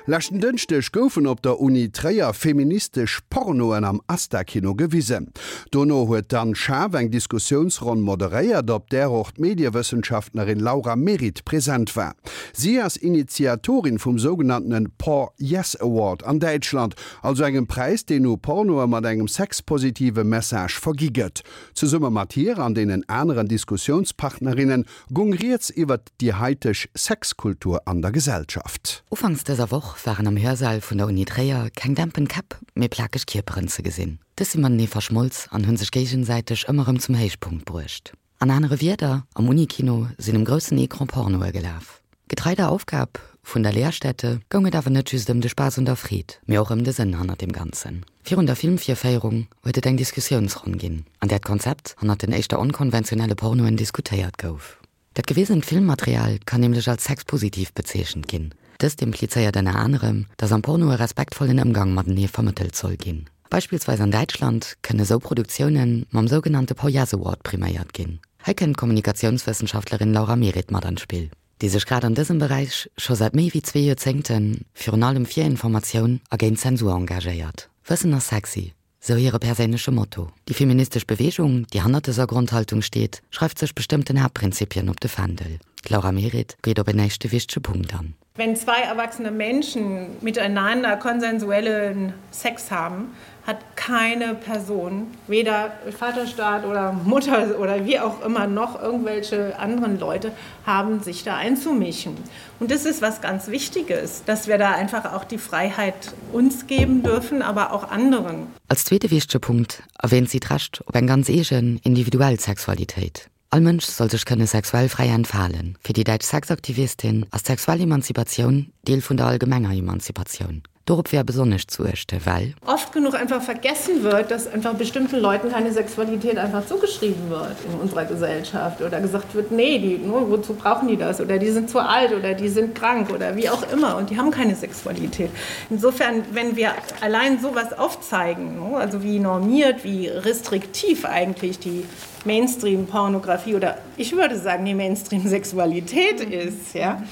Leschten Dënschdeg goufen op der Uni Tréier feministesch Pornoen am Asta-Kino gewisen. Dono huet d'Anne Schaaf eng Diskussiounsronn moderéiert, op där och d'Mediewëssenschaftlerin Laura Merritt present war. Si ass Initiatorin vum sougenanntene Por Yes Award an Däitschland, also engem Präis, deen u Pornoe mat engem sexpositive Message vergi gëtt. Zesumme mat hir an deenen aneren Diskussiounspartnerinne gung rieds iwwert déi haiteg Sexkultur an der Gesellschaft. Ufanks dëser Woch waren am Hörsaal vun der Uni Tréier keng dämpen Käpp, mee plakeg Kierperen ze gesinn. Dës si matenee verschmolz an hunn sech géigesäiteg ëmmer erëm zum Héichpunkt bruecht. An anere Wierder, am Unikino sinn um groussen Ecran Pornoe gelaf. Getrei der Aufgab vun der Lehrstätte goung et awer net just ëm de Spaass un der Freed, mee och ëm de Sënn hannert dem Ganzen. Virun der Filmvirféierung huet et eng Diskussiounsronn ginn, an där d'Konzept hannert den éischter onkonventionelle Pornoen diskutéiert gouf. Dat gewisent Filmmaterial kann nämlech als sexpositiv bezeechent ginn. Dëst implizéiert ënner anerem, datt am Porno e respektvollen Ëmgang matenee vermëttelt soll ginn. Beispillsweis an Däitschland kënne sou Produktioune mam sougenannte Poyas Award priméiert ginn. Hei kënnt d'Kommunikatiounswëssenschaftlerin Laura Meritt mat an d'Spill, déi sech grad an dësem Beräich scho säit méi wéi zwee Joerzéngte virun allem fir Informatioun a géint Zensur engagéiert. Wëssen ass sexy, sou hire perséinleche Motto. Déi feministesch Beweegung, déi hannert dëser Grondhaltung steet, schreift sech bestëmmten Haaptprinzipien op de Fändel. D'Laura Meritt geet op en éischte wichtege Punkt an. Wenn zwei erwachsene Menschen miteinander konsensuellen Sex haben, hat keine Person, weder Vaterstaat oder Mutter oder wie auch immer noch irgendwelche anderen Leute haben sich da einzumischen. Und das ist was ganz Wichtiges, dass wir da einfach auch die Freiheit uns geben dürfen, aber auch anderen. Als zweete wichtege Punkt erwähnt si d'Recht op eng ganz eegen, individuell Sexualitéit. All Mënsch soll sech kënne sexuell fräi entfalen. Fir déi däitsch Sexaktivistin ass d'sexuell Emanzipatioun Deel vun der allgemenger Emanzipatioun. Dorop wär besonnesch zu uechte, well. Oft genug einfach vergessen wird, dass einfach bestimmten Leuten keine Sexualität einfach zugeschrieben wird in unserer Gesellschaft oder gesagt wird, nee, die, ne, wozu brauchen die das oder die sind zu alt oder die sind krank oder wie auch immer und die haben keine Sexualität. Insofern, wenn wir allein sowas aufzeigen, ne, also wie normiert, wie restriktiv eigentlich die Mainstream-Pornografie oder ich würde sagen die Mainstream-Sexualität ist, ja,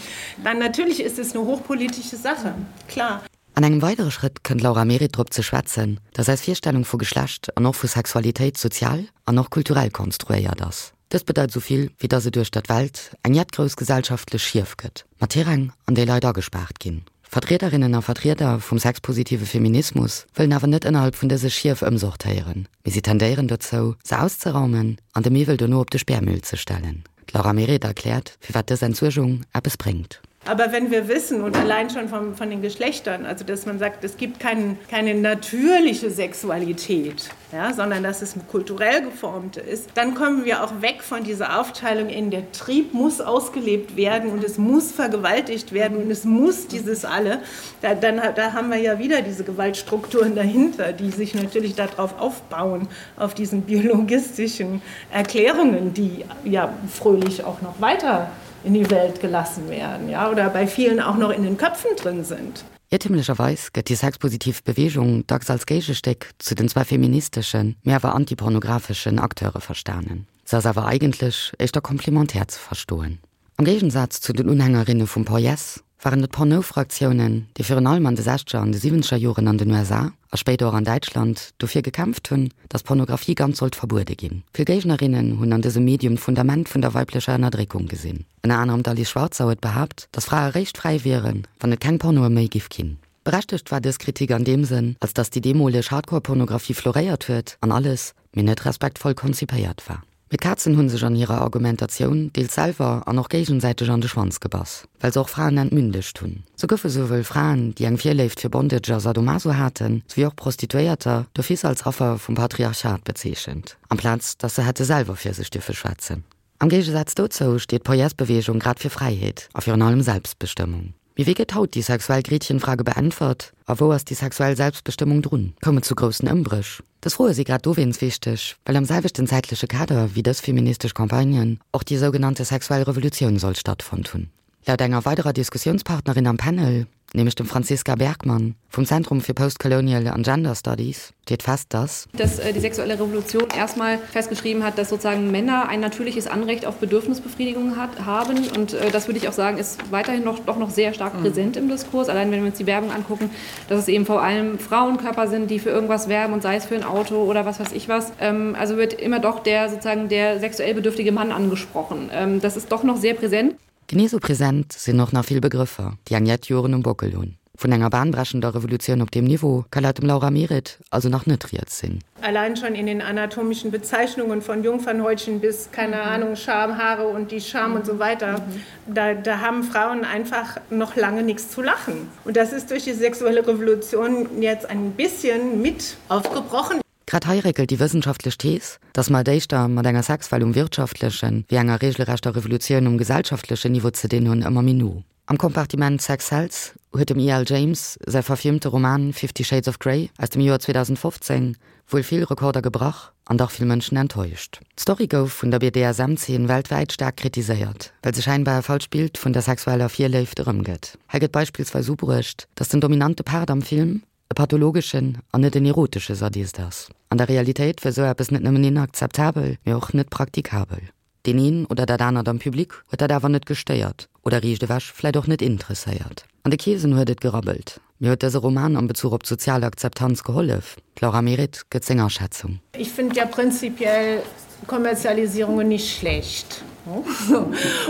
dann natürlich ist es eine hochpolitische Sache, klar. An engem weidere Schrëtt kënnt d'Laura Meritt drop ze schwätzen, datt eis Virstellung vu Geschlecht an och vu Sexualitéit sozial an och kulturell konstruéiert ass. Dëst bedeit esou vill, wéi datt et uechter d'Welt eng jett grouss gesellschaftlech Schief gëtt, mat Tiräng, an déi Leit agespaart ginn. Vertriederinnen a Vertrieder vum sexpositive Feminismus wëllen awer net ënnerhalb vun dëse Schief ëmsortéieren, mee si tendéieren dozou, se auszeraumen an de Miwwel dono op de Sperrmüll ze stellen. D'Laura Meritt erkläert, firwat dës Entsuergung eppes bréngt. Aber wenn wir wissen und allein schon vom, von den Geschlechtern, also dass man sagt, es gibt kein, keine natürliche Sexualität, ja, sondern dass es kulturell geformt ist, dann kommen wir auch weg von dieser Aufteilung in der Trieb muss ausgelebt werden und es muss vergewaltigt werden und es muss dieses alle. Da, dann, da haben wir ja wieder diese Gewaltstrukturen dahinter, die sich natürlich darauf aufbauen, auf diesen biologistischen Erklärungen, die ja fröhlich auch noch weiter in die Welt gelassen werden ja, oder bei vielen auch noch in den Köpfen drin sind. Iertemlecherweis gëtt déi sexpositiv Beweegung dacks als Géigestéck zu den zwar feministeschen, mee awer antipornographeschen Acteure verstanen. Se ass awer eigentlech éischter komplementär ze verstoen. Am Géigensaz zu den Unhängerinne vum Por Yes waren et d'Porno-Fraktiounen, déi virun allem an de sechzeger an de siwwenzeger Joren an den USA, a spéider och an Däitschland, dofir gekämpft hunn, datt Pornografie ganz sollt verbuede ginn. Vill Géignerinnen hunn an dësem Medium d'Fundament vun der weiblecher Ënnerdréckung gesinn. Ënner anerem d'Alice Schwarzer huet behaapt, datt Frae réischt fräi wieren, wann et keng Pornoe méi giff ginn. Berechtegt war dës Kritik an deem Sënn, als datt déi deemoleg Hardcore-Pornografie floréiert huet an alles, mee net respektvoll konzipéiert war. Mee d'Kazen hu sech an hirer Argumentatioun deels selwer an och géigesäiteg an de Schwanz gebass, well se och Fraen entmündegt hunn. Sou goufe souwuel Fraen, déi eng Virléift fir Bondage a Sadomaso haten, souwéi och Prostituéierter d'office als Affer vum Patriarchat bezeechent, amplaz datt se hätte selwer fir sech dierfe schwätzen. Am Géigesaz dozou steet d'Poies-Beweegung grad fir Fräiheet a virun allem Selbstbestëmmung. Mee wéi gëtt haut déi sexuell Gretchenfrage beäntwert a wou ass déi sexuell Selbstbestëmmung drun? Koum et zu groussen Ëmbréch? Dës Froe si grad dowéinst wichteg, well am selwechten zäitleche Kader wéi dës feministesch Campagnen och déi sougenannte sexuell Revolutioun soll stattfonnt hunn. Laut enger weiderer Diskussiounspartnerin am Panel, nämlech dem Franziska Bergmann vum Zentrum fir Postcolonial an Gender Studies, steet fest, dass. Dass die sexuelle Revolution erstmal festgeschrieben hat, dass sozusagen Männer ein natürliches Anrecht auf Bedürfnisbefriedigung hat, haben. Und äh, das würde ich auch sagen, ist weiterhin noch, doch noch sehr stark mhm. präsent im Diskurs. Allein wenn wir uns die Werbung angucken, dass es eben vor allem Frauenkörper sind, die für irgendwas werben und sei es für ein Auto oder was weiß ich was. Ähm, also wird immer doch der sozusagen der sexuell bedürftige Mann angesprochen. Ähm, das ist doch noch sehr präsent. Genee sou present sinn och nach vill Begrëffer, déi eng jett Joren um Bockel hunn. Vun enger bahnbrechender Revolutioun op deem Niveau ka laut dem Laura Meret also nach net rieds sinn. Allein schon in den anatomischen Bezeichnungen von Jungfernhäutchen bis, keine Ahnung, Schamhaare und die Scham und so weiter, da, da haben Frauen einfach noch lange nichts zu lachen. Und das ist durch die sexuelle Revolution jetzt ein bisschen mit aufgebrochen. Grad hei réckelt déi wëssenschaftlech Thees, datt mer et éischter mat enger Sexwell um wirtschaftlechen, wéi enger regelrechter Revolutioun um gesellschaftlechen Niveau ze dinn hunn, ëmmer méi no. Am Kompartiment Sex Sells huet dem E. L. James säi verfilmte Roman Fifty Shades of Grey aus dem Joer 2015 wuel vill Rekorder gebrach an dach vill Mënschen enttäuscht. D'Story gouf vun der BDSM-Zeen weltwäit staark kritiséiert, well se schäinbar e falscht Bild vun der sexueller Virléift erëmgëtt. Hei gëtt beispillsweis ubruecht, datt den dominante Part am Film e pathologeschen an net en erotesche Sadist ass. An der Realitéit wär sou eppes net nëmmen inakzeptabel, mee och net praktikabel. Deen een oder dat anert am Public huet dat awer net gestéiert oder riicht ewech vläit och net interesséiert. An de Keesen huet et gerabbelt. Mee huet dëse Roman am Bezuch op d'sozial Akzeptanz gehollef? D'Laura Meret gëtt seng Aschätzung. Ich find ja prinzipiell Kommerzialisierungen nicht schlecht.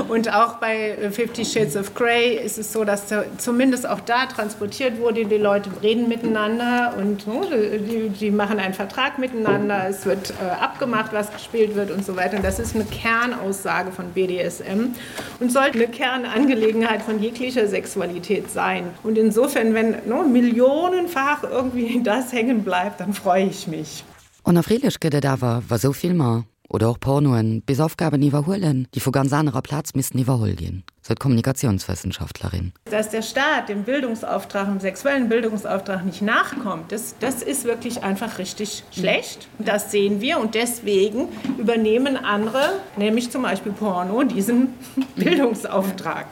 Und auch bei Fifty Shades of Grey ist es so, dass zumindest auch da transportiert wurde, die Leute reden miteinander und die, die machen einen Vertrag miteinander, es wird äh, abgemacht, was gespielt wird und so weiter. Und das ist eine Kernaussage von BDSM und sollte eine Kernangelegenheit von jeglicher Sexualität sein. Und insofern, wenn no, millionenfach irgendwie das hängen bleibt, dann freue ich mich. Onerfreelech gëtt et awer, wa sou Filmer oder och Pornoen bis Aufgaben iwwerhuelen, déi vu ganz anerer Plaz missten iwwerholl ginn, sou d'Kommunikatiounswëssenschaftlerin. Dass der Staat dem Bildungsauftrag, dem sexuellen Bildungsauftrag nicht nachkommt, das, das ist wirklich einfach richtig schlecht. Das sehen wir und deswegen übernehmen andere, nämlich zum Beispiel Porno, diesen Bildungsauftrag.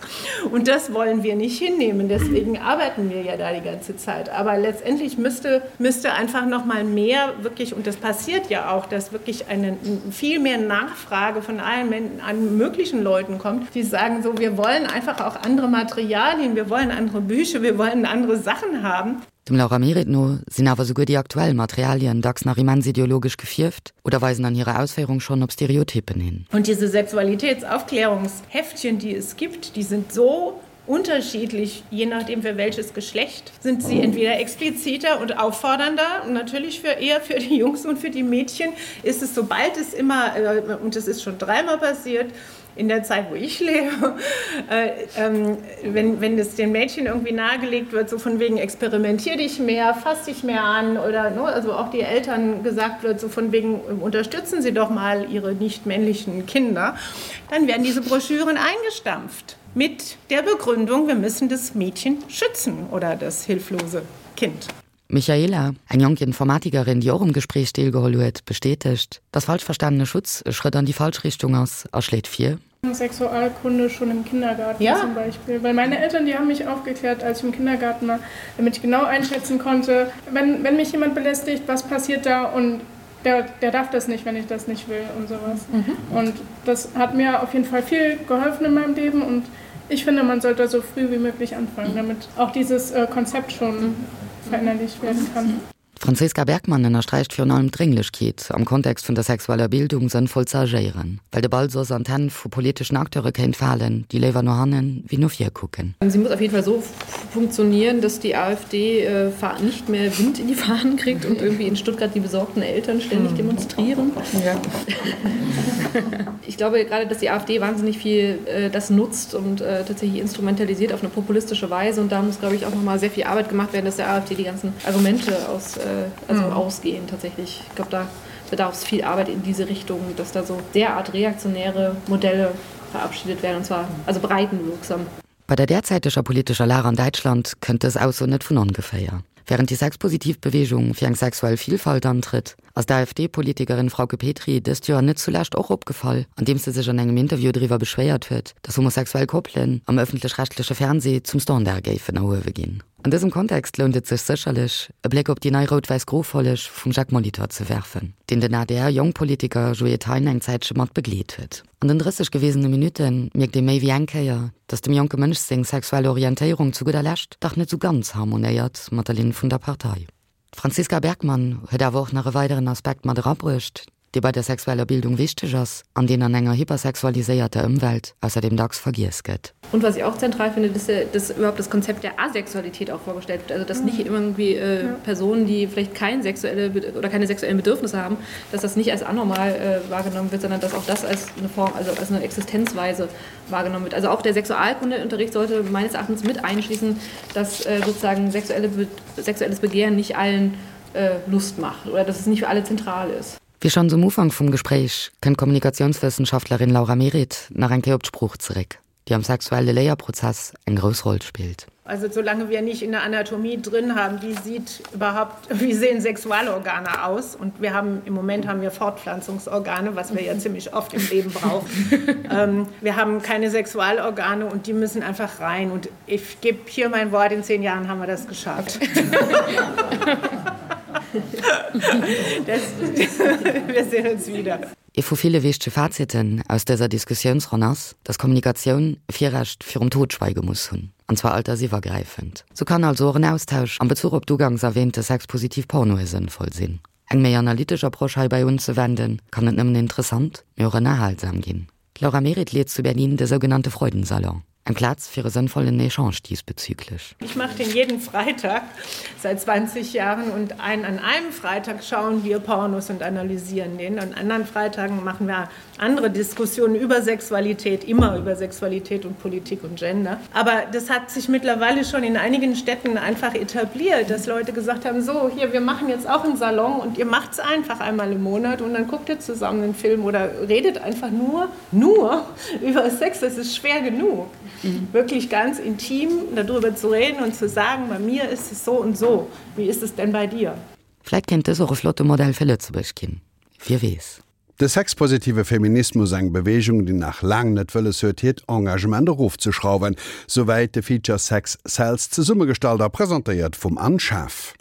Und das wollen wir nicht hinnehmen. Deswegen arbeiten wir ja da die ganze Zeit. Aber letztendlich müsste, müsste einfach noch mal mehr wirklich, und das passiert ja auch, dass wirklich eine viel mehr Nachfrage von allen an möglichen Leuten kommt, die sagen so, wir wollen einfach auch andere Materialien, wir wollen andere Bücher, wir wollen andere Sachen haben. Dem Laura Meret no sinn awer souguer déi aktuell Materialien dacks nach immens ideologesch gefierft oder weisen an hirer Ausféierung schonn op Stereotypen hin. Und diese Sexualitätsaufklärungsheftchen, die es gibt, die sind so unterschiedlich, je nachdem für welches Geschlecht sind sie entweder expliziter und auffordernder und natürlich für eher für die Jungs und für die Mädchen ist es sobald es immer äh, und es ist schon dreimal passiert, in der Zeit, wo ich lebe, äh, ähm, wenn, wenn es den Mädchen irgendwie nahegelegt wird, so von wegen experimentier dich mehr, fass dich mehr an oder ne, also auch die Eltern gesagt wird, so von wegen unterstützen sie doch mal ihre nicht männlichen Kinder, dann werden diese Broschüren eingestampft mit der Begründung, wir müssen das Mädchen schützen oder das hilflose Kind. D'Michaela, eng jonk Informatikerin, déi och um Gespréich deelgeholl huet, bestätegt, dass falsch verstanene Schutz e Schrëtt an déi falsch Richtung ass a schléit vir, Sexualkunde schon im Kindergarten ja. zum Beispiel. Weil meine Eltern, die haben mich aufgeklärt, als ich im Kindergarten war, damit ich genau einschätzen konnte, wenn, wenn mich jemand belästigt, was passiert da und der, der darf das nicht, wenn ich das nicht will und sowas. Mhm. Und das hat mir auf jeden Fall viel geholfen in meinem Leben und ich finde, man sollte so früh wie möglich anfangen, damit auch dieses äh, Konzept schon verinnerlicht werden kann. D'Franziska Bergmann ënnersträicht virun allem d'Drénglechkeet, am Kontext vun der sexueller Bildung sënnvoll ze agéieren, well de Ball soss an d'Hänn vu politeschen Acteure kéint falen, déi léiwer no hannen wéi no vir kucken. Sie muss auf jeden Fall so funktionieren, dass die AfD äh, nicht mehr Wind in die Fahnen kriegt und irgendwie in Stuttgart die besorgten Eltern ständig mhm. demonstrieren. Ja. Ich glaube gerade, dass die AfD wahnsinnig viel äh, das nutzt und äh, tatsächlich instrumentalisiert auf eine populistische Weise. Und da muss, glaube ich, auch noch mal sehr viel Arbeit gemacht werden, dass der AfD die ganzen Argumente aus, äh, also mhm. ausgehen tatsächlich. Ich glaube, da bedarf es viel Arbeit in diese Richtung, dass da so derart reaktionäre Modelle verabschiedet werden und zwar also breitenwirksam. Bei der derzäiteger politescher Lag an Däitschland kënnt dës Ausso net vun ongeféier. Wärend déi sexpositiv Beweegung fir eng sexuell Villfalt antrëtt, ass d'AfD-Politikerin Frauke Petry dëst Joer net zulescht och opgefall, andeems se sech an engem Interview driwwer beschwéiert huet, datt homosexuell Koppelen am ëffentlech-rechtleche Fernsee zum Standard géifen erhuewe ginn. An dësem Kontext lount et sech sécherlech, e Bléck op déi nei rout-wäiss-gro Folleg vum Jacques Molitor ze werfen, deen den ADR-Jongpolitiker Joé Thein eng Zäitche mat begleet huet. An den 30 gewesene Minutte mierkt ee méi wéi eng Kéier, datt dem jonke Mënsch seng sexuell Orientéierung zu gudder Lescht dach net sou ganz harmonéiert mat der Linn vun der Partei. D'Franziska Bergmann huet awer och nach e weideren Aspekt mat erabruecht, dee bei der sexueller Bildung wichteg ass an deen an enger hypersexualiséierter Ëmwelt ausserdeem dacks vergiess gëtt. Und was ich auch zentral finde, dass, dass überhaupt das Konzept der Asexualität auch vorgestellt wird. Also dass nicht irgendwie äh, ja. Personen, die vielleicht kein sexuelle oder keine sexuellen Bedürfnisse haben, dass das nicht als anormal äh, wahrgenommen wird, sondern dass auch das als eine Form, also als eine Existenzweise wahrgenommen wird. Also auch der Sexualkundeunterricht sollte meines Erachtens mit einschließen, dass äh, sozusagen sexuelle, sexuelles Begehren nicht allen äh, Lust macht oder dass es nicht für alle zentral ist. Wéi schonns um Ufank vum Gespréich, kënnt d'Kommunikatiounswëssenschaftlerin Laura Meritt nach eng Kéier op d'Sprooch zeréck, déi am sexuelle Léierprozess eng grouss Roll spillt. Also solange wir nicht in der Anatomie drin haben, wie sieht überhaupt wie sehen Sexualorgane aus und wir haben im Moment haben wir Fortpflanzungsorgane, was wir ja ziemlich oft im Leben brauchen. ähm, wir haben keine Sexualorgane und die müssen einfach rein und ich gebe hier mein Wort in zehn Jahren haben wir das geschafft. das, wir sehen uns wieder. Ee vu ville wichtege Faziten aus dëser Diskussiounsronn ass, dass Kommunikatioun Virrecht virum Totschweige muss hunn, an zwar altersiwwergräifend. Sou kann also och en Austausch am Bezuch op d'ugangs erwähnte sexpositiv Pornoe sënnvoll sinn. Eng méi analytesch Approche heibäi unzewenden, kann net nëmmen interessant, mee och ënnerhalsam ginn. D'Laura Meritt leet zu Berlin de sougenannte Freudensalon, eng Plaz fir e sënnvollen Echange diesbezüglich. Ich mache den jeden Freitag seit 20 Jahren und ein, an einem Freitag schauen wir Pornos und analysieren den. An anderen Freitagen machen wir andere Diskussionen über Sexualität, immer über Sexualität und Politik und Gender. Aber das hat sich mittlerweile schon in einigen Städten einfach etabliert, dass Leute gesagt haben: so hier wir machen jetzt auch einen Salon und ihr macht es einfach einmal im Monat und dann guckt ihr zusammen einen Film oder redet einfach nur nur über Sex. Das ist schwer genug. Mhm. Wirklich ganz intim darüber zu reden und zu sagen: bei mir ist es so und so. Wie ist es denn bei dir? Vläit kéint dës och e flotte Modell fir Lëtzebuerg ginn, wie weess. De sexpositive Feminismus, eng Beweegung, déi nach laang net wëlles huet, hiert Engagement erofzeschrauwen. Souwäit de Feature Sex Sells, zesummegestallt a presentéiert vum Anne Schaaf.